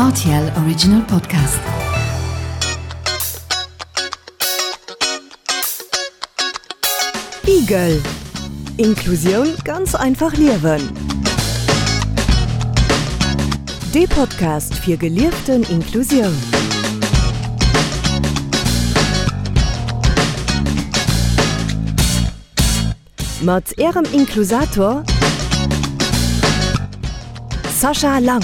Rtl Original Podcast. Igel. Inklusioun ganz einfach liewen. Dee Podcast fir gelieften Inklusioun. Mat Ärem Inklusator Sascha Lang.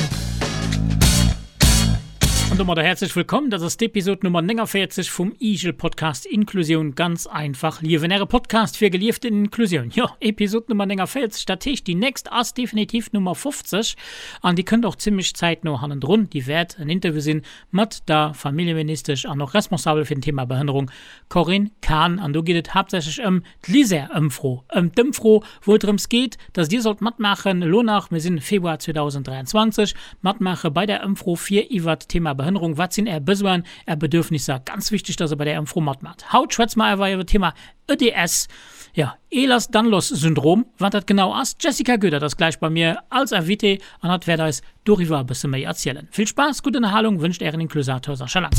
An domadder häerzlech wëllkomm. Dat ass d'Episod Nummer 49 vum Igel-Podcast Inklusioun ganz einfach liewen. Äre Podcast fir gelieften Inklusioun. Jo, Episod Nummer 49, dat heescht déi nächst ass definitiv Nummer 50 an déi kënnt och zimmlech zäitno hannendrun. Déi wäert en Interview sinn mat der Familljeministesch an och Responsabel fir den Thema Behënnerung Corinne Cahen. An do geet et haaptsächlech ëm D'LISER-Ëmfro, ëm d'Ëmfro, wou et drëms geet, dass Dir sollt matmaachen, elo nach, mir sinn Februar 2023, matmaache bei där Ëmfro fir iwwert d'Thema Behënnerung, wat sinn Är Besoinen, Är Bedürfnisser, ganz wichteg, dass Der bei där Ëmfro matmaacht. Haut schwätze mer awer iwwer d'Thema EDS, jo, Ehlers-Danlos-Syndrom, wat dat genau ass. D'Jessica Goedert ass gläich bei mir als Invitée an hatt wäert eis doriwwer e bësse méi erzielen. Vill Spaass, gutt Ënnerhalung wënscht Ären Inklusator Sascha Lang.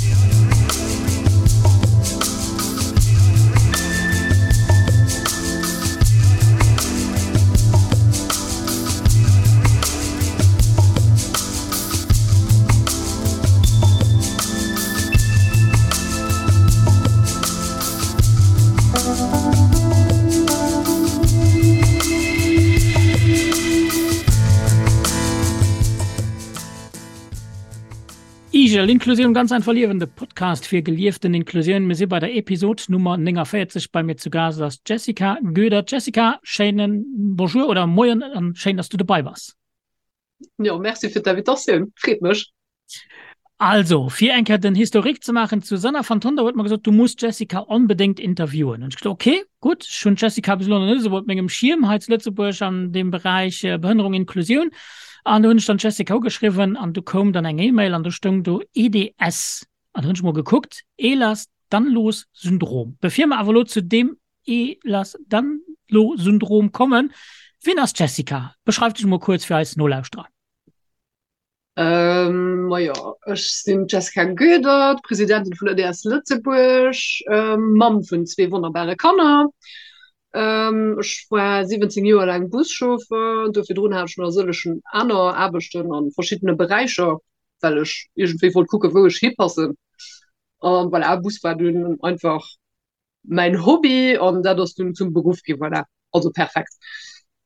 Igel, Inklusioun ganz einfach liewen, de Podcast fir gelieften Inklusioun. Mir si bei der Episod Nummer 49. Bei mir zu Gast ass d'Jessica Goedert. Jessica, schéinen Bonjour oder Moien an schéin, dass du dobei bass. Jo, merci fir d'Invitatioun, freet mech. Also, fir eng Kéier den Historique ze maachen, d'Susanna van Tonder huet mer gesot, du muss d'Jessica onbedéngt interviewen. Hunn ech gesot, okay, gutt, ech hunn d'Jessica bis elo nach net esou op mengem Schierm hei zu Lëtzebuerg an deem Beräich Behënnerung, Inklusioun. An du hunn ech dann d'Jessica ugeschriwwen an du koum dann eng E-Mail an do stoung do EDS. An du hunn ech mol gekuckt, Ehlers-Danlos-Syndrom. Bevir mer awer elo zu deem Ehlers-Danlos-Syndrom kommen, wien ass d'Jessica? Beschreif dech mol kuerz fir eis Nolauschterer. Majo, ech sinn d'Jessica Goedert, Presidentin vun EDS Lëtzebuerg, Mamm vun zwee wonnerbare Kanner. Ech war 17 Joer laang Buschauffer, do virdrun hat ech nach e sëllegen aner Aarbechten a verschiddene Beräicher, well ech iergendwéi wollt kucken, wou ech hipassen. A voilà, Bus war dunn einfach mäin Hobby an dat ass dunn zum Beruff ginn, voilà, also perfekt.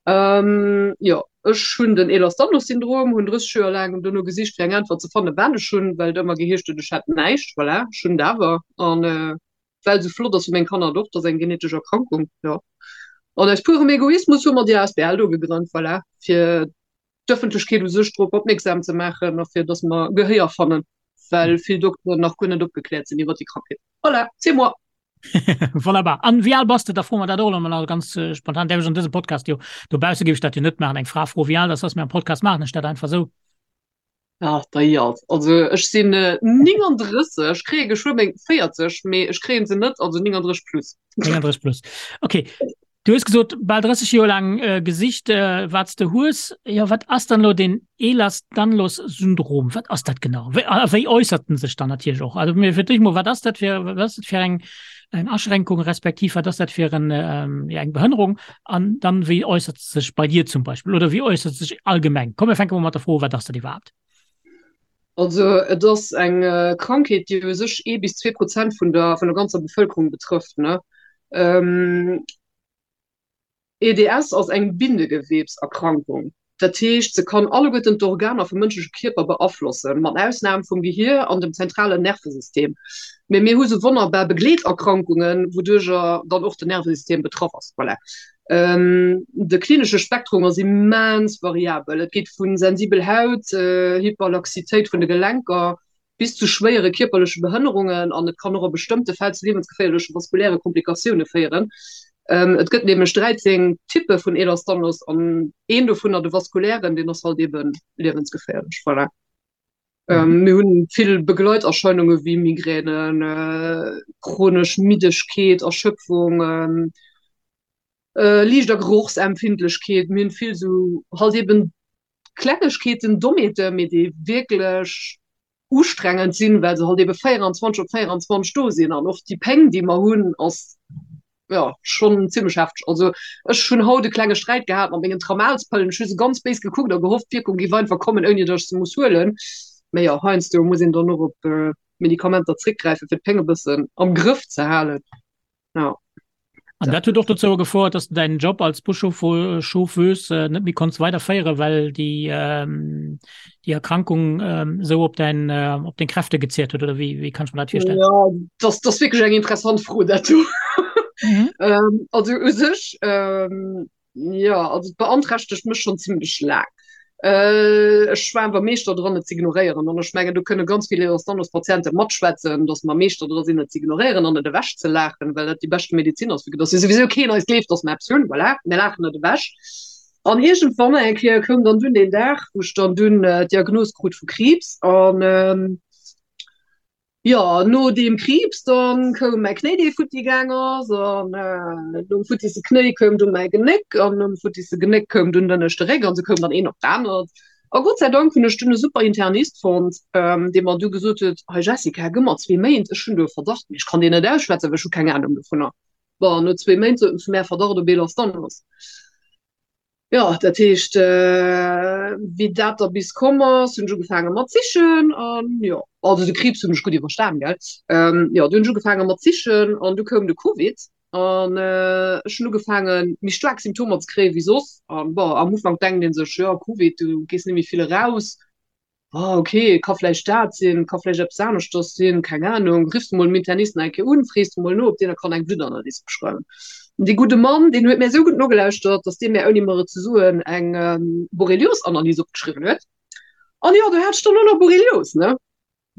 Ähm, jo, ech hunn den Ehlers-Danlos-Syndrom, hunn 30 Joer laang dono gesicht fir eng Äntwert ze fannen, wat ech hunn, well et ëmmer geheescht huet, ech hätt näischt, voilà, ech hunn et awer an äh, well esou flott ass fir meng Kanner et och, et ass eng genetesch Erkrankung, jo. An aus purem Egoismus hu mer déi asbl do gegrënnt, voilà, fir d'Ëffentlechkeet u sech drop opmierksam ze maachen a fir datt mer Gehéier fannen, well vill Dokteren nach guer net opgekläert sinn iwwer déi Krankheet. Voilà, c'est moi! Wonnerbar. An wéi al bass de? Da froe mer dat och elo mol ganz spontan. Däerf ech an dësem Podcast jo, dobausse géif ech dat jo net maachen, eng Fra froe wéi al dass ass, mee am Podcast maachen ech dat einfach esou. Ach, dei alt. Also ech sinn 39, ech kréie geschwë meng 40, mee ech kréien se net, also 39 plus. 39 plus. Okay. Du hues gesot, bal 30 Joer laang gesicht, wat s de hues. Jo, wat ass dann elo deen Ehlers-Danlos-Syndrom? Wat ass dat genau? Wéi, a wéi äussert en sech dann natierlech och? Also mir fir d'éischt mol, wat ass dat fir, wat ass dat fir eng, eng Aschränkung, respektiv wat ass dat fir en, ja, eng Behënnerung? An dann, wéi äussert se sech bei dir zum Beispill oder wéi äussert se sech allgemeng? Komm, mir fänke mol mat der Fro u, wat ass dat iwwerhaapt? Also et ass eng Krankheet, déi u sech ee bis 2% vun der, vun der ganzer Bevëlkerung betrëfft, ne. EDS ass eng Bindegewebserkrankung. Dat heescht, se kann alleguerten d'Organer vum mënschleche Kierper beaflossen, mat Ausnam vum Gehier an dem zentralen Nervesystem. Mee mir hu sou wonnerbar Begleeterkrankungen, wouduercher dann och den Nervesystem betraff ass. Voilà. De klinesche Spektrum ass immens variabel. Et geet vu sensibel Haut, Hyperlaxitéit vun de Gelenker bis zu schwéiere kierperleche Behënnerungen an et kann och a bestëmmte Fäll zu liewensgeféierleche vaskuläre Komplikatioune féieren. Et gëtt nämlech 13 Typpe vun Ehlers-Danlos an een dovunner, de vaskulären, deen ass halt eebe liewensgeféierlech. Voilà. Mir hunn vill Begleiterscheinunge wéi Migränen, chronesch Middegkeet, Erschöpfung, Liicht a Gerochsempfindlechkeet. Mir hunn vill esou halt eben Klengegkeeten, Dommheeten, mee déi wierklech. ustrengend sinn, well se halt ebe 24 op 24 do sinn an och déi Péng, déi mer hunn, ass jo schonn zimmlech hefteg. Also ech hunn haut e klenge Sträit gehat mat mengen Tramalspëllen. Ech hu se ganz béis gekuckt a gehofft, d'Wierkung géif einfach kommen, ouni datt ech se muss huelen. Mee jo, heiansdo muss een dann och op Medikamenter zréckgräifen, fir d'Péng e bëssen am Grëff ze halen. Ja. An dat huet och dozou gefouert, dass du deinen Job als Buschauffeuse net méi konns weiderféieren, well déi ähm, déi Erkrankung ähm, sou op dein äh, op deng Kräfte gezeert huet oder wéi wéi kann ech mir dat virstellen? Ja, das, das wierklech eng interessant Fro dat do. Mhm. ähm, also u sech ähm, Jo, also et beanträchtegt mech schonn zimlech laang. Ech war awer Meeschter dran, et z'ignoréieren. An ech mengen, do kënne ganz vill Ehlers-Danlos-Patiente matschwätzen, datt mer Meeschter dra sinn, et z'ignoréieren an et ewechzelaachen, well dat déi beschte Medezin ass, vue que datt jo souwisou keen eis gleeft, datt mer eppes hunn. Voilà, mir laachen et ewech. An iergendwann eng Kéier koum dann dunn deen Dag, wou ech dann dunn d'Diagnos krut vu Kriibs. An Jo, no deem Kriibs dann koum mäi Knéi dee futti gaang ass an nom futtisse Knéi koum dunn mäi Genéck an nom futtisse Genéck koum dunn den ënneschte Réck an sou koum dann een op d'anert. A Gott sei Dank hunn ech dunn e super Internist fonnt, dee mer du gesot huet, Hei Jessica, gëmm mer zwee Méint, ech hunn do e Verdacht, mee ech kann deen net ausschwätzen, well ech hu keng Anung dovunner. Bon, no zwee Méint sot en zu mär, Verdacht op Ehlers-Danlos. Jo, dat heescht, wéi dat da bis komm ass, hunn ech ugefaange mat sichen an jo, also de Kriibs hunn ech gutt iwwerstan, gell. Jo, du hunn ech ugefaange mat sichen an du koum de Covid an ech hunn ugefaange méi staark Symptomer ze kréie wéi soss. An bon, am Ufank denkt ee sech, jo, Covid, du gees net méi vill eraus. Ah, ok, ka vläicht dat sinn, ka vläicht eppes aneschters sinn, keng Anung. Riffs de mol dem Internist nach eng Kéier un, frees de mol no, ob deen der kann eng Bluttanalys beschreiwen. An dee gudde Mann, deen huet mär esou gutt nogelauschtert, dass dee mär, ouni mer et ze soen, eng Borrelios-Analys opgeschriwwen huet. An jo, do hat ech dann och nach Borrelios, ne?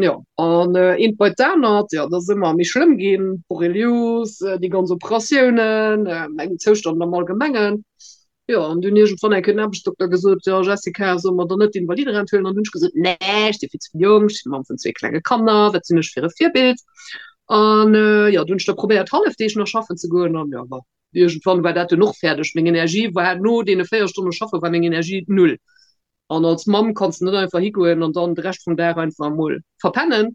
Jo, an eent bei d'anert, jo, et ass ëmmer méi schlëmm ginn, Borrelios, déi ganz Operatiounen, mäin Zoustand am Allgemengen. Jo, an dunn iergendwann eng Kéier den Aarbechtsdokter gesot, Jo, Jessica, solle mer dann net d'Invaliderent huelen? An dunn hunn ech gesot, Nee, ech si vill ze jonk, ech sinn d'Mamm vun zwee klenge Kanner, wat sinn ech fir e Virbild? An jo, dunn hunn ech da probéiert, Hallefdeeg nach schaffen ze goen an jo, bon, iergendwann war dat dunn och fäerdeg. Meng Energie war no deene 4 Stonne schaffe war meng Energie null. An als Mamm kanns de net einfach higoen an dann de Rescht vum Dag einfach emol verpennen.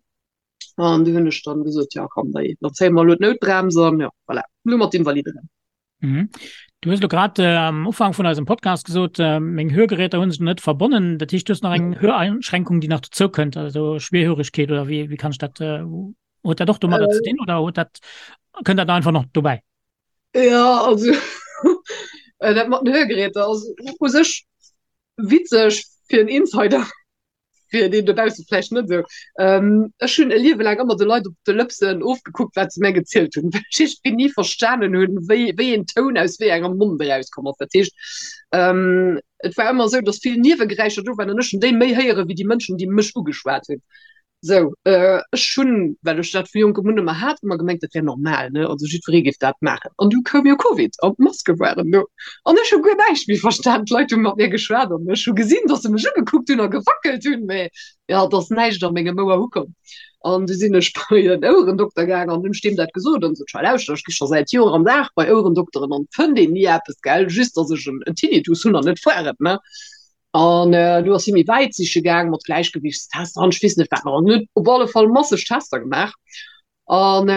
An du hunn ech dann gesot, jo, komm, da zéie mer elo d'Noutbrems an jo, voilà, elo mat Invaliderent. Mhm. Du hues lo grad äh, am Ufank vun eisem Podcast gesot, äh, meng Hörgeräter hunn sech net verbonnen. Dat heescht, du hues nach eng Höreinschränkung, déi nach dozou kënnt, also Schwerhörigkeet oder wie, wie kann ich dat äh, huet dat och domadder äh, ze dinn oder huet dat kënnt dat einfach noch dobäi? Ja, also äh, dat mat den Hörgeräter ass u sech witzeg fir en Insider. fir deen dobausse vläicht net esou. Ech hunn e Liewe laang ëmmer de Leit op de Lëpsen ofgekuckt, wat se mär gezielt hunn, well ech iergendwéi ni verstanen hunn, wéi, wéi een Toun aus wéi engem Mond erauskomm ass. Dat heescht, et war ëmmer esou, datt vill Niewegeräischer do waren an ech hunn déi méi héiere wéi déi Mënschen, déi mech ugeschwat hunn. Sou, ech hunn, well ech dat vu jonkem un ëmmer hat, ëmmer gemengt, dat wär normal, ne, also jiddweree géif dat maachen. An du koum jo Covid an d'Maske waren do an ech hu guer näischt méi verstan. D'Leit hu mat mir geschwat an ech hu gesinn, datt se mech ugekuckt hunn a gewackelt hunn, mä jo, et ass näischt a mengem Ouer ukomm. An du sinn ech bei en Ouerendokter gaang an hunn ech deem dat gesot an sot, Schei lauschter, ech gi scho säit Joer am Dag bei Ouerendokteren an et fënnt een ni eppes, gell, just datt ech en Tinnitus hunn an net foiret, ne. An du ass hie méi wäit siche gaang mat Gläichgewichtstester an ech weess net wat nach. An huet op alle Fall masseg Tester gemaach. An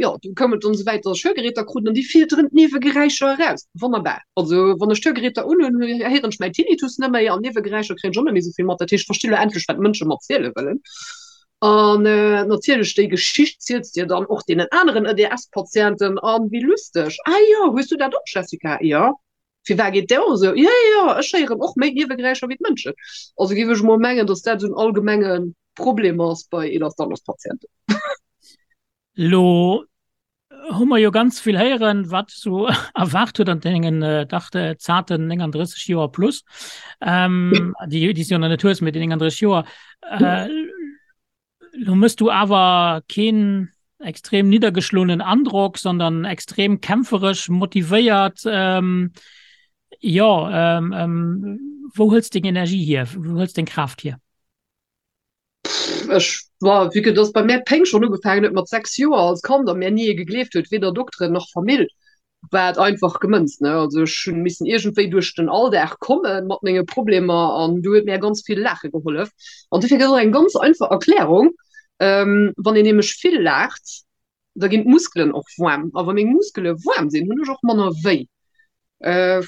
jo, du koum et dann esou wäit, datt ech Hörgeräter krut an déi filteren d'Niewegeräischer eraus. Wonnerbar. Also wann ech d'Hörgeräter unhunn, héieren ech mäin Tinnitus net méi an Niewegeräischer kréien ech och net méi esou vill mat. Dat heescht, ech versti lo endlech, wat d'Mënsche mer ziele wëllen. An natierlech, déi Geschicht ziels de dann och deenen aneren EDS-Patienten. An wéi lusteg, Ah jo, hues du dat och, Jessica? Jo. Firwat geet där och esou? Jo, jo, jo, ech héieren och méi Niewegeräischer wéi d'Mënschen. Also géif ech emol mengen, datt dat esou en allgemenge Problem ass bei Ehlers-Danlos-Patienten. Lo hu mer jo ganz vill héieren, wat sou erwaart huet an dengen dach zarten 39 Joer plus, déi déi s du jo nach net hues, mee déi 39 Joer. Lo mëss du awer keen extrem niddergeschloenen Androck, sondern extrem kämpferesch, motivéiert. Ähm, jo, ähm, ähm, wou hëls deng Energie hier? Wou hëls deng Kraaft hier? Ech war, vue que dass bei mär d'Péng schonn ugefaangen huet mat 6 Joer als Kand a mär ni ee gegleeft huet, weder Dokteren nach Famill. War et einfach gemënzt, ne? Also ech hunn missen iergendwéi duerch den Alldag komme mat menge Problemer an do huet mir ganz vill Laache gehollef. An dofir gëtt och eng ganz einfach Erklärung, Wann een nämlech vill laacht, da ginn d'Muskelen och waarm. A wa meng Muskele waarm sinn, hunn ech och manner wéi.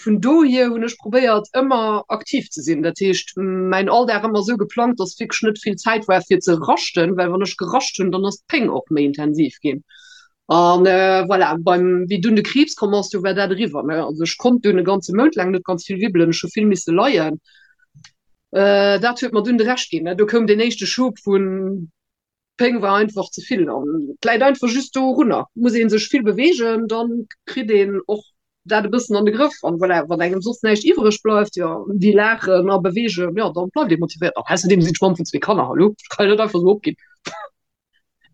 Vun dohier hunn ech probéiert ëmmer aktiv ze sinn. Dat heescht mäin Alldag ëmmer esou geplangt, datt wierklech net vill Zäit war fir ze raschten, well wann ech gerascht hunn, dann ass d'Péng och méi intensiv ginn. An voilà, beim wéi dunn de Kriibs komm ass, du war dat eriwwer, ne. Also ech konnt dunn e ganze Mount laang net ganz vill wibbelen, ech hu vill misse leien. Dat huet mer dunn de Rescht ginn, ne. Do koum deen éischte Schub vun D'Péng war einfach ze vill an et läit einfach just dorunner. Muss ee sech vill beweegen, dann kritt een och dat e bëssen an de Grëff. An voilà, wann engem soss näischt iwwereg bleift, jo, wéi laachen a beweegen, jo, dann bleift ee motivéiert. An ausserdeem sinn ech Mamm vun zwee Kanner, hallo, ech kann jo net einfach esou opginn.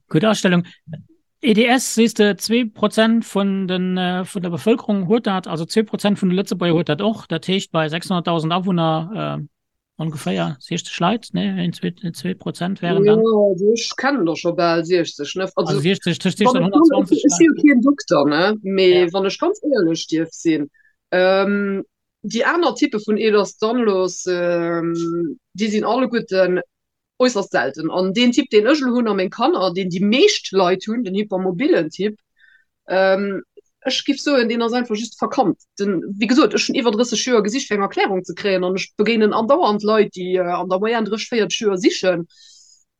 Gutt Astellung. EDS, sees de, 2% vun den, vun der Bevëlkerung huet dat, also 2% vun de Lëtzebuerger huet dat och. Dat heescht bei 600.000 Awunner, Ongeféier 60 Leit, ne? 1, 2, 2 Prozent wären dann. Jo, also ech kennen der scho bal 60, ne? Also, also 60, tëscht 60 an 120. Ech si jo keen Dokter, ne? Mee ja. wann ech ganz éierlech dierf sinn, ähm, déi aner Typpe vun Ehlers-Danlos, ähm, déi sinn alleguerten äusserst selten. An deen Typ, deen ech elo hunn a meng Kanner, deen déi meescht Leit hunn, den hypermobilen Typ, ähm, ech giff soen, deen ass einfach just verkannt. Den, wéi gesot, ech hunn iwwer 30 Joer gesicht, fir eng Erklärung ze kréien an ech begéinen andauernd Leit, déi an der Moyenne 30, 40 Joer sichen.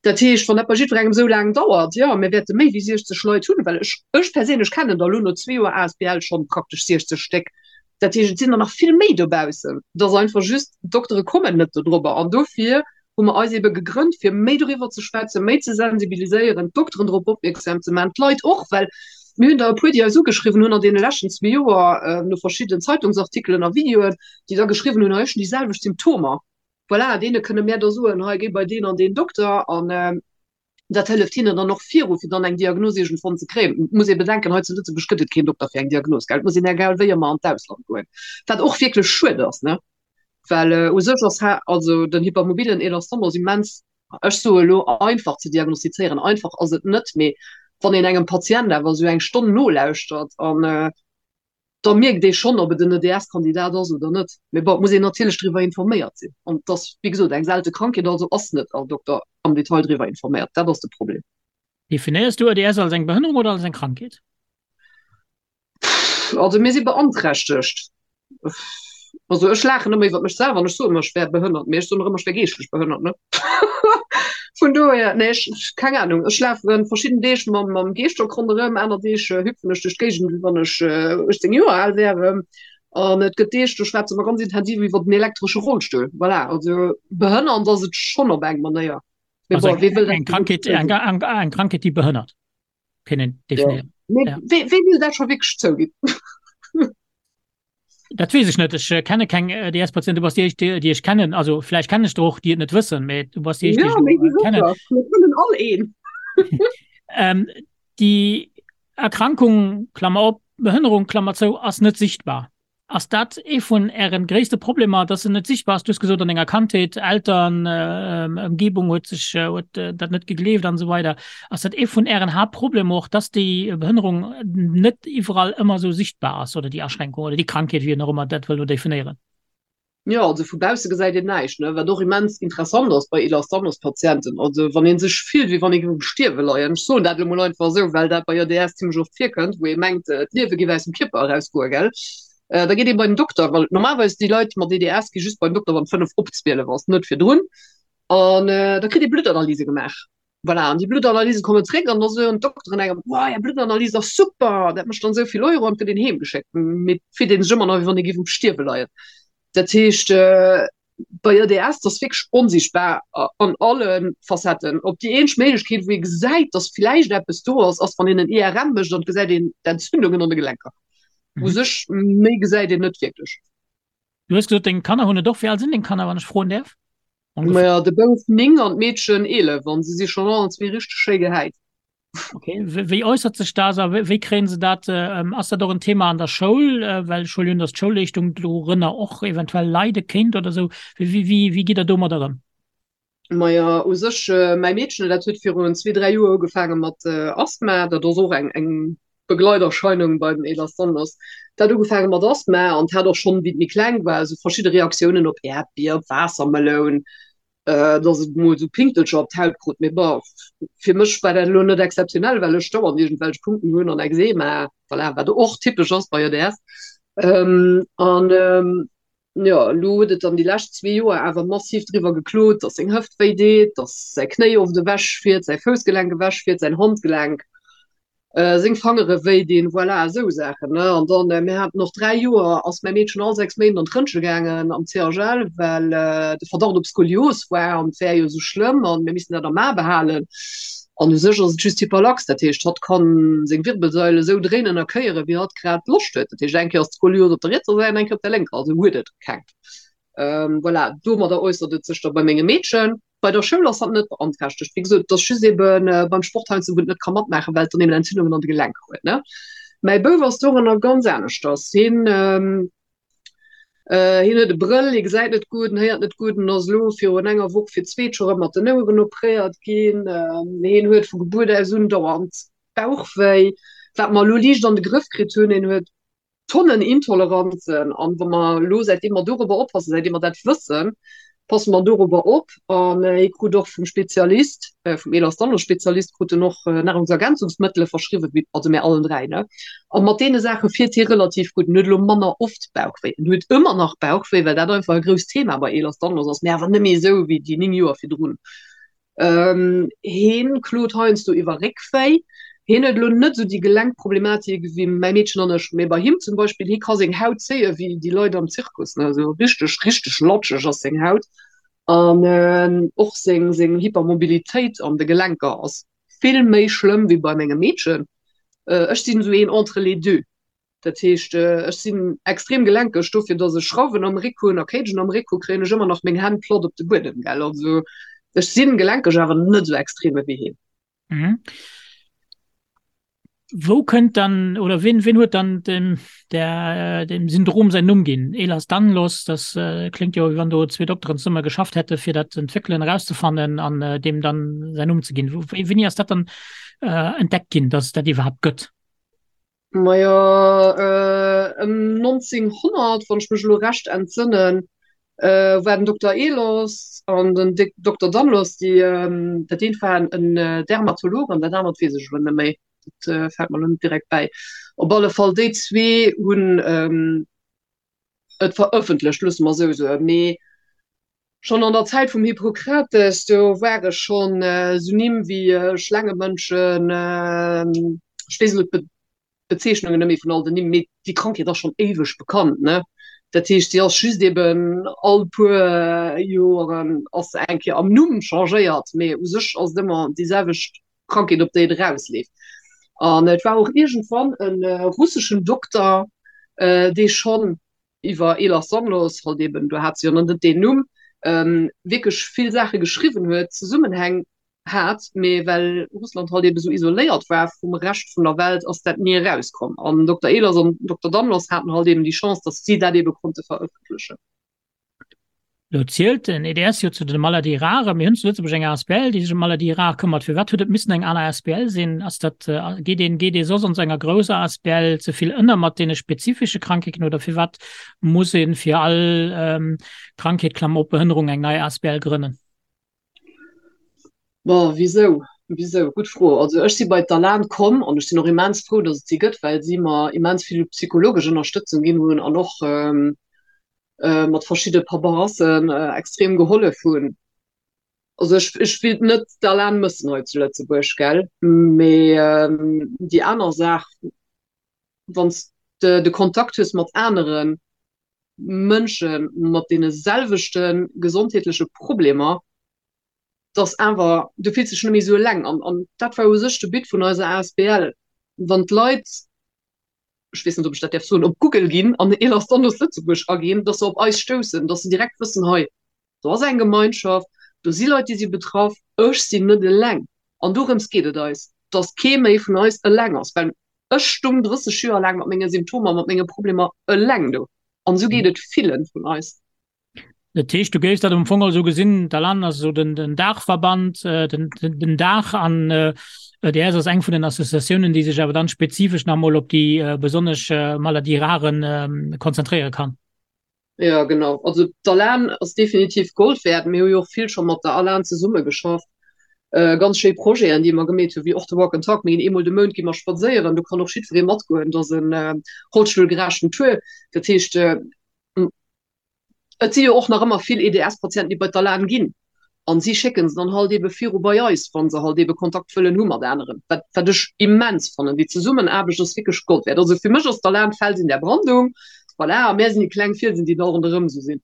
Dat heescht, wann dat bei jiddwerengem esou laang dauert, jo, mir wäerte méi wéi 60 Leit hunn, well ech, ech perséinlech kennen der elo no zwee Joer asbl schonn praktesch 60 Stéck. Dat heescht, et sinn der nach vill méi dobaussen. Et ass einfach just, d'Doktere kommen net dodrobber an dofir hu mer eis ebe gegrënnt, fir méi doriwwer ze schwätzen, méi ze sensibiliséieren, d'Dokteren drop opmierksam ze maachen, d'Leit och, well mir hunn der e puer, déi eis ugeschriwwen hunn an deene leschten zwee Joer no verschiddenen Zeitungsartikelen a Videoen, déi da geschriwwen hunn, hei ech hunn déi selwecht Symptomer. Voilà, deene kënne mär da soen, hei géi bei deen an deen Dokter an dat hëlleft hinnen dann och viru, fir dann eng Diagnos iergendwann ze kréien. Et muss ee bedenken, hei zu Lëtzebuerg gëtt et keen Dokter fir eng Diagnos, gell. Et muss een egal wéi ëmmer an d'Ausland goen, wat och wierklech schued ass, ne, well u sech ass also den hypermobilen Ehlers-Danlos immens, ech soe elo einfach ze diagnostizéieren. Einfach ass et net, mee wann een engem Patient awer esou eng Stonn nolauschtert an da mierkt ee schonn, ob et en EDS-Kandidat ass oder net. Mee bon, et muss een natierlech driwwer informéiert sinn. An et ass, wéi gesot, eng selte Krankheet, also ass net all Dokter am Detail driwwer informéiert. Dat ass de Problem. Definéiers du EDS als eng Behënnerung oder als eng Krankheet? Also mir si beanträchtegt. Also ech laachen ëmmer iwwer mech selwer an ech soen ëmmer, ech wär behënnert, mee ech soen och ëmmer, ech wär geeschtlech behënnert, ne? Vun dohier, nee, ech, keng Ahnung, ech lafen verschidden Deeg mam, mam Geestock ronderëm, aner Deeg hüpfen ech duerch d'Géigend, wéi wann ech 18 Joer al wär. An et gëtt Deeg, do schwätze mer ganz intensiv iwwer den elektresche Rollstull. Voilà, also behënnernd ass et schonn op eng Manéier. Mee bon, wee wëll dat Eng Krankheet, eng, eng, eng Krankheet, déi behënnert, kënnen definéieren. Ja. Mee wee, wee wëll dat scho wierklech zouginn? Dat weess ech net. Ech äh, kenne keng äh, DS-Patienten. Du bass déi éischt, déi, déi ech kennen. Also vläicht kennen ech der och, déi et net wëssen, mee du bass déi éischt, déi Ja, ech méi elo äh, kennen. sécher. Mir kennen all een. Ähm, déi Erkrankung, Klammer op, Behënnerung, Klammer zou, ass net sichtbar. Ass dat ee vun ären gréisste Problemer, dass se net sichtbar ass? Du hues gesot, an denger Kandheet, Eltern, äh, Ëmgebung huet sech, äh, huet äh, dat net gegleeft an esou weider. Ass dat ee vun Ären Haaptproblemer och, dass déi Behënnerung net iwwerall ëmmer esou sichtbar ass oder déi Aschränkung oder déi Krankheet, wéi een och ëmmer dat wëll elo definéieren? Jo, also vu bausse gesäit een näischt, ne? Wat och immens interessant ass bei Ehlers-Danlos-Patienten. Also wann ee sech fillt, wéi wann ee géif um Stierwe leien, ech soen dat elo mol einfach esou, well dat bei EDS zimmlech oft virkënnt, wou ee mengt, d'Liewe géif aus dem Kierper erausgoen, gell? Da geet ee bei den Dokter, well normalerweis déi Leit mat EDS gi just bei den Dokter, wann 5 op 12 ass, net virdrun. An da kritt ee Bluttanalyse gemaach. Voilà, an déi Bluttanalyse kommen zréck an da soen d'Dokteren engem, Wow, är Bluttanalyse ass super, dat mécht dann esou vill Euro an et gëtt een heem geschéckt. Mee et fillt ee sech ëmmer nach, wéi wann ee géif um Stierwe leien. Dat heescht, bei EDS, dat ass wierklech onsichtbar an alle Facetten. Op déi eenzeg Méiglechkeet, wou ee gesäit, datt vläicht eppes do ass, ass, wann een en IRM mécht an et gesäit een d'Entzündungen an de Gelenker. U sech, méi gesäit een net wierklech. Du hues gesot, deng Kanner hunn et och. Wéi al sinn deng Kanner, wann ech froen däerf? Maja, de Bouf 9 an d'Meedchen 11 an si si schonn allen zwee richteg schéi gehäit. Okay, wéi äussert sech dat a wéi kréien se dat? Ass dat och en Thema an der Schoul? Well ech huelen un, datt d'Schoulleeschtung dorënner och eventuell leide kéint oder esou. Wéi wéi gitt Der domadder ëm? Maja, u sech mäi Meedchen, dat huet virun zwee, dräi Joer ugefaange mat Asthma. Dat ass och eng eng. Begleiterscheinung bei den Ehlers-Danlos. Dat huet ugefaange mat Asthma an hat och schonn, wéi et méi kleng war, esou verschidde Reaktiounen op Äerdbier, op Waassermeloun, dass et mol esou Pinktelcher op d'Haut krut. Mee bon, fir mech war dat elo net exzeptionell, well ech dauernd iergendwelch Punkten hunn an Ekzema, voilà, wat och typesch ass bei EDS. An jo, elo huet et dann déi lescht zwee Joer awer massiv driwwer geklot, dass seng Hëft wéi deet, dass säi Knéi oft ewechfiert, säi Foussgelenk ewechfiert, säin Handgelenk. Seng Fangere wéi dinn, voilà, esou Saachen, ne. An dann, mir haten och 3 Joer, ass mäi Meedchen all 6 Méint an d'Rëntge gaangen am CHL, well de Verdacht op Skolios war an et wär jo esou schlëmm an mir missten dat am A behalen. An u sech ass et just Hyperlax, dat heescht, hatt kann seng Wirbelsail esou dréinen a kéieren, wéi hatt grad Loscht huet. Dat heescht, eng Kéier ass d'Skolios op der rietser Säit an eng Kéier op der lénker, also huet et keng. Voilà, domadder äussert et sech da bei mengem Meedchen. Bei der Schoul ass hatt net beanträchtegt. Wéi gesot, et ass just ebe beim Sport heiansdo, wou en net ka matmaachen, well et dann eben Entzündungen an de Gelenker huet, ne. Mäi Bouf ass doranner ganz aneschters. Hien, hien huet e Brëll, hie gesäit net gutt, en héiert net gutt, en ass elo virun enger Woch fir d'zweet scho rëm mat den Oueren opréiert ginn. Hien huet vu Gebuert aus un dauernd Bauchwéi, wat mer elo liicht an de Grëff kritt hunn. Hien huet Tonnen Intoleranzen an wa mer elo, säitdeem mer dorobber oppassen, säitdeem mer dat wëssen, passe mer dorobber op an hie krut och vum Spezialist, vum Ehlers-Danlos-Spezialist krut en och Nahrungsergänzungsmëttele verschriwwen, wéi, also mär allen 3, ne, a mat deene Saache fiert hie relativ gutt. En huet elo manner oft Bauchwéi, en huet ëmmer nach Bauchwéi, well dat einfach e grousst Thema bei Ehlers-Danlos ass, mä awer net méi esou wéi déi 9 Joer virdrun. Heen klot heiansdo iwwer Réckwéi. Heen huet elo net esou déi Gelenkproblematik wéi mäi Meedchen an ech, mee bei him zum Beispill, hie ka seng Haut zéie wéi déi Leit am Zirkus, ne, esou richteg, richteg latscheg ass seng Haut. An och seng, seng Hypermobilitéit an de Gelenker ass vill méi schlëmm wéi bei mengem Meedchen. Ech sinn esou een entre les deux. Dat heescht, ech sinn extrem gelenkeg, dofir datt ech Schrauwen am Réck hunn a Cagen am Réck hu kréien ech ëmmer nach meng Hänn platt op de Buedem, gell. Also ech sinn gelenkeg, awer net esou extrem ewéi hien. Mhm. Wou kënnt dann oder wien, wien huet dann dem, der, dem Syndrom säin Numm ginn? Ehlers-Danlos, das äh, klingt jo, wéi wann do zwee Dokteren zesumme geschafft hätte fir dat z'entwéckelen, erauszefannen an äh, deem dann säin Numm ze ginn. Wou, wéini ass dat dann äh, entdeckt ginn, dass et dat iwwerhaapt gëtt? Majo, ëm 1900, wann ech mech elo recht entsënnen, war den Dokter Ehlers an den Dokter Danlos, déi, dat eent war en Dermatolog an dat anert weess ech elo net méi, dat fält mer elo net direkt bäi. Op alle Fall déi zwee hunn et verëffentlecht, loosse mer esou soen. Mee schonn an der Zäit vum Hippokrates, do ware schonn esou Nimm wéi Schlaangemënschen, ech weess elo d'Bezeechnungen net méi vun all den Nimm, mee déi Krankheet ass schonn éiweg bekannt, ne? Dat heescht, si ass just eben all puer Joeren ass se eng Kéier am Numm changéiert, mee u sech ass et ëmmer déi selwecht Krankheet, op déi et erausleeft. An et war och iergendwann e russeschen Dokter, dee schonn iwwer Ehlers-Danlos, halt eben, do hat se jo nach net deen Numm, wierklech vill Saache geschriwwen huet, Zesummenhäng hat, mee well Russland halt eben esou isoléiert war vum Rescht vun der Welt, ass dat ni erauskomm. An Dokter Ehlers an Dokter Danlos haten halt eben déi Chance, datt si dat ebe konnte verëffentlechen. Lo zielt den EDS jo zu de Maladies rares. Mir hunn zu Lëtzebuerg eng asbl, déi sech ëm Maladies rares këmmert. Firwat huet et missen eng aner asbl sinn? Ass dat, geet een, geet ee soss an esou enger grousser asbl ze vill ënner mat deene spezifesche Krankheeten oder firwat muss ee fir all Krankheet, Klammer op, Behënnerung eng nei asbl grënnen? Bon, wisou? Wisou? Gutt Fro. Also ech si bei d'ALAN komm an ech sinn och immens frou, datt et si gëtt, well si mer immens vill psychologesch Ënnerstëtzung ginn hunn an och mat verschidde Paperassen extrem gehollef hunn. Also ech, ech wéilt net d'ALAN mëssen hei zu Lëtzebuerg, gell? Mee déi aner Saach, wann s de de Kontakt hues mat anere Mënsche mat deene selwechte gesondheetleche Problemer, dass awer, du fills dech net méi esou eleng. An, an dat war u sech de But vun eiser asbl, wann d'Leit, ech weess net, ob ech dat däerf soen, op Google ginn an Ehlers-Danlos Lëtzebuerg aginn, dass se op eis stoussen, dass se direkt wëssen, hei, do ass eng Gemeinschaft, do si Leit, déi si betraff, ech sinn net eleng. An dorëms geet et eis, dass kee méi vun eis eleng ass, well ech stung 30 Joer laang mat menge Symptomer, mat menge Problemer eleng do. An esou geet et villen vun eis. Dat heescht, du géifs dat am Fong esou gesinn, d'ALAN ass esou den, den Daachverband, den, den Daach an EDS ass eng vun den Associatiounen, déi sech awer dann spezifesch nach emol op déi besonnesch Maladies rares konzentréiere kann. Jo, genau. Also d'ALAN ass definitiv Gold wäert. Mir hu jo och vill scho mat der ALAN zesummegeschafft. Ganz schéi Projeten, déi mer gemeet hunn, wéi och de Walk and Talk. Mir ginn eemol de Mount gi mer spadséieren, do kann och jiddweree matgoen. Dat ass en rollstullgerechten Tour. Dat heescht, Et si jo och nach ëmmer vill EDS-Patienten, déi bei d'ALAN ginn. An si schécken se dann halt eebe viru bei eis, wa se halt eebe Kontakt wëllen hu mat aneren. Wat, wat ech immens fannen. Déi Zesummenaarbecht ass wierklech Gold wäert. Also fir mech ass d'ALAN d'Fels in der Brandung. Voilà, a mär sinn déi kleng Fielsen, déi da ronderëm esou sinn.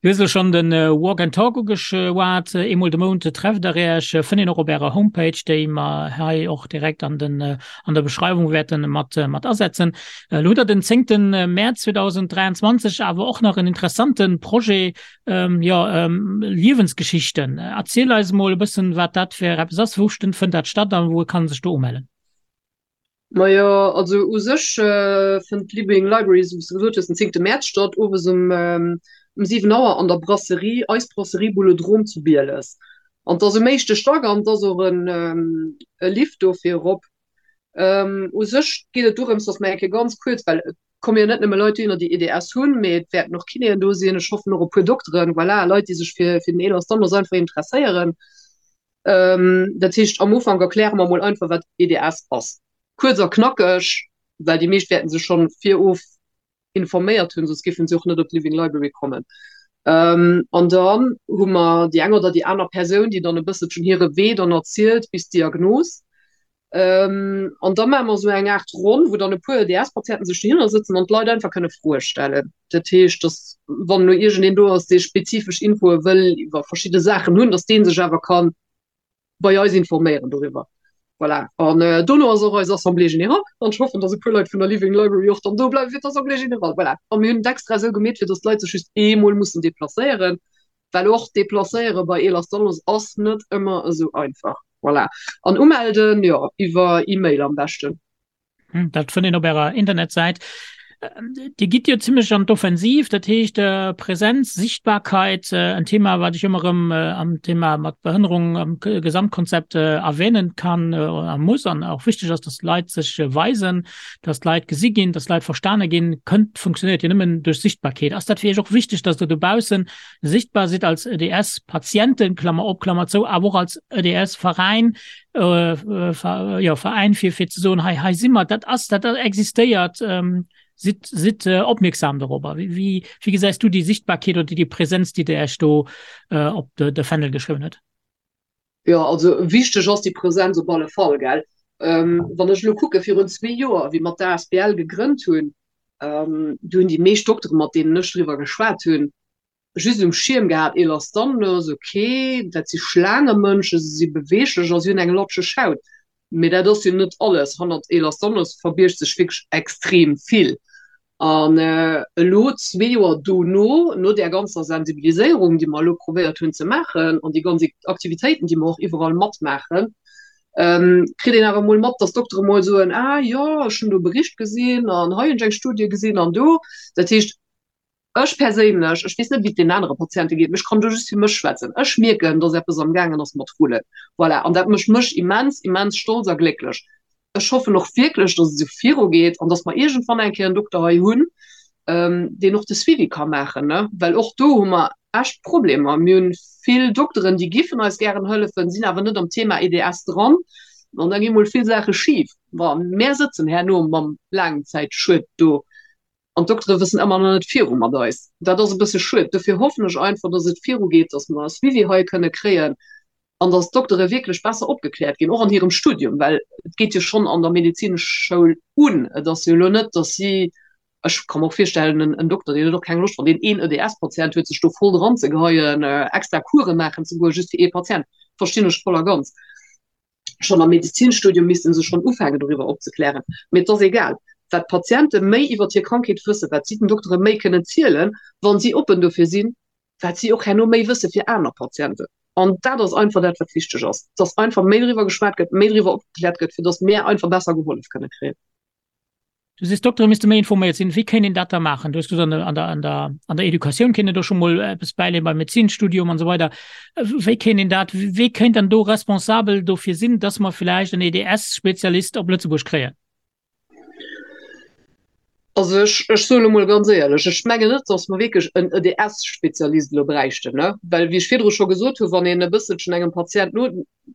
Du hues elo schonn de Walk and Talk ugeschwat. Eemol de Mount trefft der Iech. Fënnt een och op Ärer Homepage, déi mer hei och direkt an den, an der Beschreiwung wäerte mat, mat asetzen. Elo hutt Der den zéngte Mäerz 2023 awer och nach en interessante Projet, jo, Liewensgeschichten. Erziel eis emol e bëssen, wat dat fir eppes ass. Wou fënnt dat statt a wou kann ee sech do umellen? Majo, also u sech fënnt d'Living Library, esou wéi s de gesot hues, den zéngte Mäerz statt, owes um um 7 Auer an der Brasserie, Eis Brasserie Boulodrome zu Bieles. An 't ass um éischte Stack an 't ass och en e Lift dofir erop. U sech geet et dorëms, datt mer eng Kéier ganz kuerz, well et komme jo net nëmme Leit dohinner, déi EDS hunn, mee et wäerten och Kinéen do sinn, ech hoffen och e puer Dokteren, voilà, Leit, déi sech fir fir den Ehlers-Danlos einfach interesséieren. Dat heescht, am Ufank erkläre mer mol einfach, wat EDS ass. Kuerz a knackeg, well déi meescht wäerten sech schonn virof informéiert hunn, soss géifen si och net op d'Living Library kommen. An dann hu mer déi eng oder déi aner Persoun, déi dann e bësselchen hire Wee dann erzielt bis d'Diagnos. An da maache mer esou eng Aart Ronn, wou dann e puer EDS-Patienten sech dohinner sëtzen an d'Leit einfach kënne Froe stellen. Dat heescht, datt wann elo iergendeen do ass, dee spezifesch Infoe wëll iwwer verschidde Saachen hunn, datt dee sech awer ka bei eis informéieren doriwwer. Voilà. An dono ass och eis Assemblée générale. An ech hoffen, datt e puer Leit vun der Living Library och dann do bleiwe fir d'Assemblée générale. Voilà. A mir hunn et extra esou gemeet, fir datt d'Leit sech just eemol mussen deplacéieren. Well och deplacéiere bei Ehlers-Danlos ass net ëmmer esou einfach. Voilà. An umelden, jo, iwwer E-Mail am beschten. Dat fënnt een op Ärer Internetsäit. Dir gitt jo zimmlech an d'Offensiv, dat heescht Präsenz, Sichtbarkeit, en Thema, wat ech ëmmer erëm am Thema mat Behënnerung am Gesamtkonzept erwähnen kann a muss an och wichteg ass, dass d'Leit sech weisen, dass d'Leit gesi ginn, dass d'Leit verstane ginn, kënnt, funktionéiert jo nëmmen duerch Sichtbarkeet. Ass dat fir Iech och wichteg, dass Der dobaussen sichtbar sidd als EDS-Patienten, Klammer op, Klammer zou, awer och als EDS-Veräin, jo, Veräin, fir, fir ze soen, hei, hei si mer, dat ass, dat existéiert, sidd, sidd opmierksam dorobber. Wéi, wéi, wéi gesäis du déi Sichtbarkeet oder déi Präsenz, déi Der Iech do op de, de Fändel geschriwwen hutt? Jo, also wichteg ass déi Präsenz op alle Fall, gell. Wann ech elo kucke virun zwee Joer, wéi mer d'ASBL gegrënnt hunn, do hunn déi meescht Dokteren, mat deenen ech driwwer geschwat hunn, just um Schierm gehat, Ehlers-Danlos, ok, dat si Schlaangemënschen, se si beweeglech a si hunn eng latscheg Haut. Mee dat ass jo net alles. Hannert Ehlers-Danlos verbiergt sech wierklech extrem vill. An elo, zwee Joer dono, no där ganzer Sensibiliséierung, déi mer elo probéiert hunn ze maachen, an déi ganz Aktivitéiten, déi mer och iwwerall matmaachen, kritt een awer emol mat, dass d'Doktere mol soen, Ah jo, ech hunn do e Bericht gesinn an hei hunn ech eng Studie gesinn an do. Dat heescht, Ech perséinlech, ech weess net, wéi et deenen anere Patiente geet, mee ech kann do just fir mech schwätzen, ech mierken, dass eppes amgaangen ass mat rullen. Voilà, an dat mécht mech immens, immens stolz a glécklech. Ech hoffen och wierklech, dass et esou virugeet an dass mer iergendwann eng Kéier en Dokter hei hunn, deen och de Suivi ka maachen, ne? Well och do hu mer echt Problemer. Mir hunn vill Dokteren, déi giffen eis gären hëllefen, sinn awer net am Thema EDS dran an da gi mol vill Saache schif. Bon, mär sëtzen herno mam Laangzäitschued do. An d'Doktere wëssen ëmmer nach net viru mat eis. Dat ass e bësse schued. Dofir hoffen ech einfach, dass et virugeet, dass mer e Suivi hei kënne kréien an dass d'Doktere wierklech besser opgekläert ginn, och an hirem Studium, well et geet jo schonn an der Medezinschoul un. Et ass jo elo net, dass si, ech ka mer och virstellen, en Dokter, deen huet och keng Loscht, wann deen een EDS-Patient huet, sech do voll dranzegeheien, extra Course maachen ze goen, just fir ee Patient. Verstinn ech voll a ganz. Schonn am Medezinstudium misste se schonn ufänken doriwwer opzeklären. Mee et ass egal, wat d'Patiente méi iwwert hir Krankheet wëssen, wat si den Doktere méi kënnen zielen, wa si oppen dofir sinn, wat si och herno méi wësse fir aner Patienten. An dat ass einfach dat, wat wichteg ass, dass einfach méi driwwer geschwat gëtt, méi driwwer opgekläert gëtt, fir dass mär einfach besser gehollef kënne kréien. Du sees, d'Doktere misste méi informéiert sinn. Wéi kéint een dat da maachen? Du hues gesot, an der, an der, an der, an der Educatioun kéint een do scho mol eppes bäileeën, beim Medezinstudium an esou weider. Wéi kéint een dat, wee kéint dann do responsabel dofir sinn, dass mer villäicht en EDS-Spezialist op Lëtzebuerg kréien? Also ech, ech soe lo mol ganz éierlech, ech mengen net, dass mer wierklech en EDS-Spezialist elo bräichten, ne? Well, wéi ech virdru scho gesot hunn, wann een e bësselchen engem Patient no,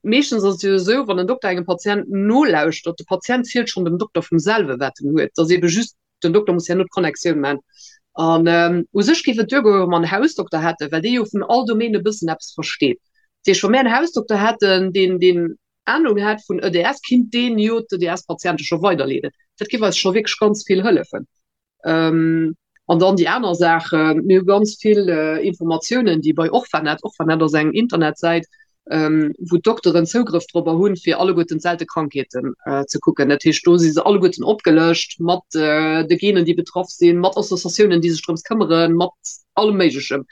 Meeschtens ass et jo esou, wann en Dokter engem Patient nolauschtert, de Patient zielt schonn dem Dokter vum selwe wat en huet, dass eebe just den Dokter muss herno d'Connectioun maachen. An u sech géif et duergoen, wa mer en Hausdokter hätten, well dee jo vun all Domaine e bëssen eppes versteet. Dat heescht, wa mir en Hausdokter hätten, deen, deen Anung hätt vun EDS, kinnt deen jo d'EDS-Patiente scho weiderleeden. Dat géif eis scho wierklech ganz vill hëllefen. An dann déi aner Saach, mir hu ganz vill Informatiounen, déi bei Orphanet, Orphanet ass eng Internetsäit, wou d'Dokteren Zougrëff dorobber hunn, fir alleguerten d'selte Krankheeten ze kucken. Dat heescht, do si se alleguerten opgelëscht mat de Genen, déi betraff sinn, mat Associatiounen, déi sech drëms këmmeren, mat allem Méiglechem.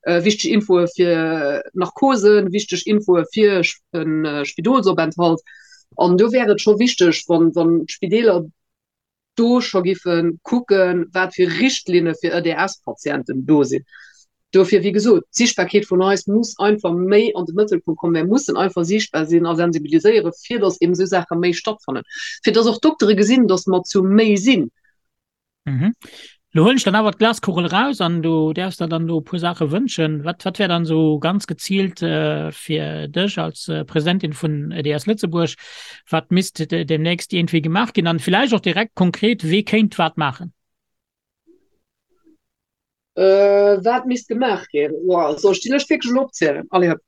Wichteg Infoe fir Narkosen, wichteg Infoe fir e Spidolsopenthalt. An do wär et scho wichteg, wann d'Spideeler do scho giffe kucken, wat fir Richtlinne fir EDS-Patienten do sinn. Dofir, wéi gesot, d'Sichtbarkeet vun eis muss einfach méi an de Mëttelpunkt kommen. Mir mussen einfach sichtbar sinn a sensibiliséieren, fir datt eben esou Saache méi stattfannen, fir datt och d'Doktere gesinn, datt mer zu méi sinn. Lo huelen ech dann awer d'Glaskugel eraus an du däerfs der dann do e puer Saache wënschen. Wat, wat wär dann esou ganz geziilt fir dech als Presidentin vun EDS Lëtzebuerg, wat misst demnächst iergendwéi gemaach ginn an villäicht och direkt konkret, wee kéint wat maachen? Wat misst gemaach ginn? Soll ech déi Lëscht wierklech elo opzielen? Allez hop.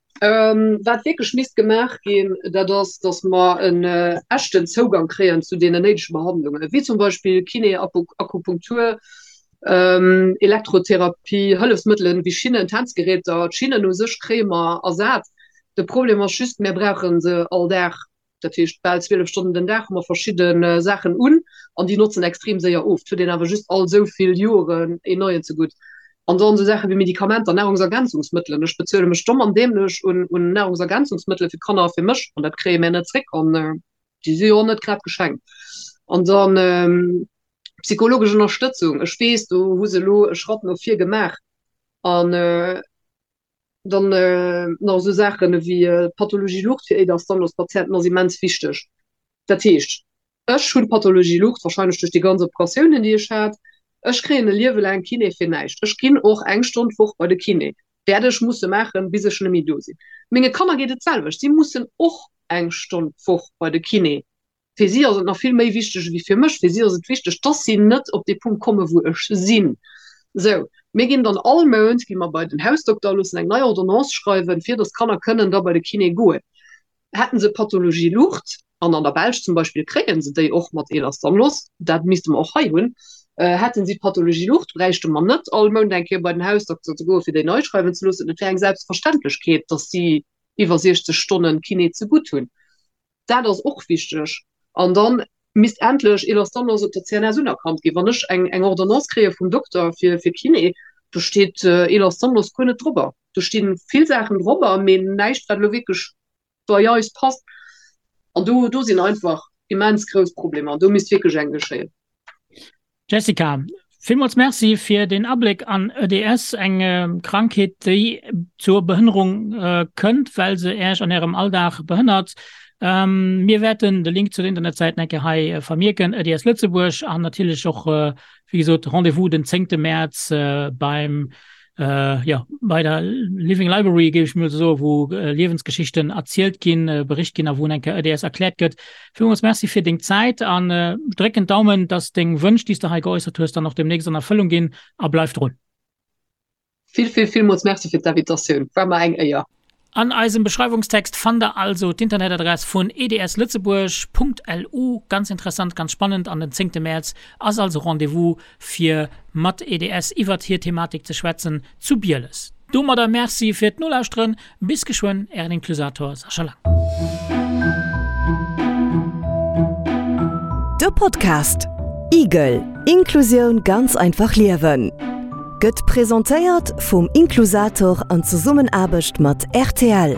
Wat wierklech misst gemaach ginn, dat ass, datt mer en echten Zougang kréien zu deenen néidege Behandlungen, wéi zum Beispill Kiné, Akupunktur, Elektrotherapie, Hëllefsmëttelen wéi Schinnen, Tänzgeräter. D'Schinnen u sech kréie mer ersat. De Problem ass just, mir brauche se all Dag. Dat heescht, bal 12 Stonnen den Dag hu mer verschidde Saachen un an déi notzen extrem séier of. Et huet een awer just all esou vill Joren een neien zegutt. An dann esou Saache wéi Medikamenter, Nahrungsergänzungsmëttelen. Ech bezuele mech domm an dämlech un un Nahrungsergänzungsmëttele fir d'Kanner a fir mech an dat kréie mär net zréck an déi si jo och net grad geschenkt. An dann psychologesch Ënnerstëtzung. Ech weess, do hu se elo e Schratt no vir gemaach an Dann nach esou Saachen ewéi d'Pathologie Lucht fir Ehlers-Danlos-Patienten ass immens wichteg. Dat heescht, ech hunn d'Pathologie Lucht, warscheinlech duerch déi ganz Operatiounen, déi ech hat. Ech kréien e Liewe laang Kiné fir näischt. Ech ginn och eng Stonn d'Woch bei de Kiné, wäert ech musse maachen, bis ech net méi do sinn. Menge Kanner geet et d'selwecht, si mussen och eng Stonn d'Woch bei de Kiné. Fir si ass et nach vill méi wichteg ewéi fir mech. Fir si ass et wichteg, dass si net op dee Punkt kommen, wou ech sinn. Sou, mir ginn dann all Mount gi mer bei den Hausdokter a loossen eng nei Ordonnance schreiwen, fir dass d'Kanner kënnen da bei de Kiné goen. Hätten se Pathologie Lucht, an an der Belsch zum Beispill kréie se déi och mat Ehlers-Danlos, dat misste mer och hei hunn, hätten si d'Pathologie Lucht, bräichte mer net all Mount eng Kéier bei den Hausdokter ze goen, fir déi nei schreiwen ze loossen. Et wär eng Selbstverständlechkeet, dass si iwwer 60 Stonnen Kiné zegutt hunn. Dat ass och wichteg. An da misst endlech Ehlers-Danlos op der CNS unerkannt ginn. Wann ech eng, eng Ordonnance kréie vum Dokter fir, fir Kiné, do steet Ehlers-Danlos guer net drobber. Do sti vill Saachen drobber, mee näischt, wat elo wierklech bei eis passt. An do, do sinn einfach immens grouss Problemer. An do misst wierklech eng geschéien. Jessica, villmools Merci fir deen Abléck an EDS, eng Krankheet, déi zur Behënnerung kënnt, well se Äech an Ärem Alldag behënnert. Mir wäerten de Link zu der Internetsäit eng Kéier hei vermierken, EDS Lëtzebuerg, an natierlech och, wéi gesot, Rendez-vous den zéngte Mäerz beim jo, bei der Living Library, géif ech mol esou soen, wou Liewensgeschichten erzielt ginn, bericht ginn a wou eng Kéier EDS erkläert gëtt. Villmools Merci fir deng Zäit an drécken d'Daumen, dass deng Wënsch, déi s de hei geäussert hues, dann och demnächst an Erfëllung ginn a bleif drun. Vill, vill, villmools Merci fir d'Invitatioun, war mer eng Éier. An eisem Beschreiwungstext fannt der also d'Internetadress vun edslëtzebuerg.lu. Ganz interessant, ganz spannend an den zéngte Mäerz ass also Rendez-vous fir mat EDS iwwert hir Thematik ze schwätzen zu Bieles. Domadder Merci fir d'Nolauschteren, bis geschwënn, Ären Inklusator Sascha Lang. De Podcast Igel, Inklusioun ganz einfach liewen gëtt presentéiert vum Inklusator an Zesummenaarbecht mat rtl.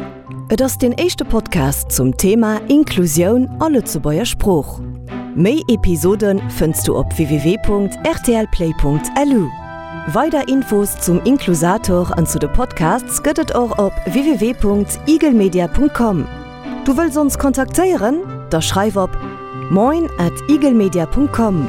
Et ass deen éischte Podcast zum Thema Inklusioun a Lëtzebuerger Sprooch. Méi Episode fënns du op www.rtlplay.lu. Weider Infos zum Inklusator an zu de Podcasts gëtt et och op www.eaglemedia.com. Du wëlls ons kontaktéieren? Da schreif op moin at eaglemedia.com.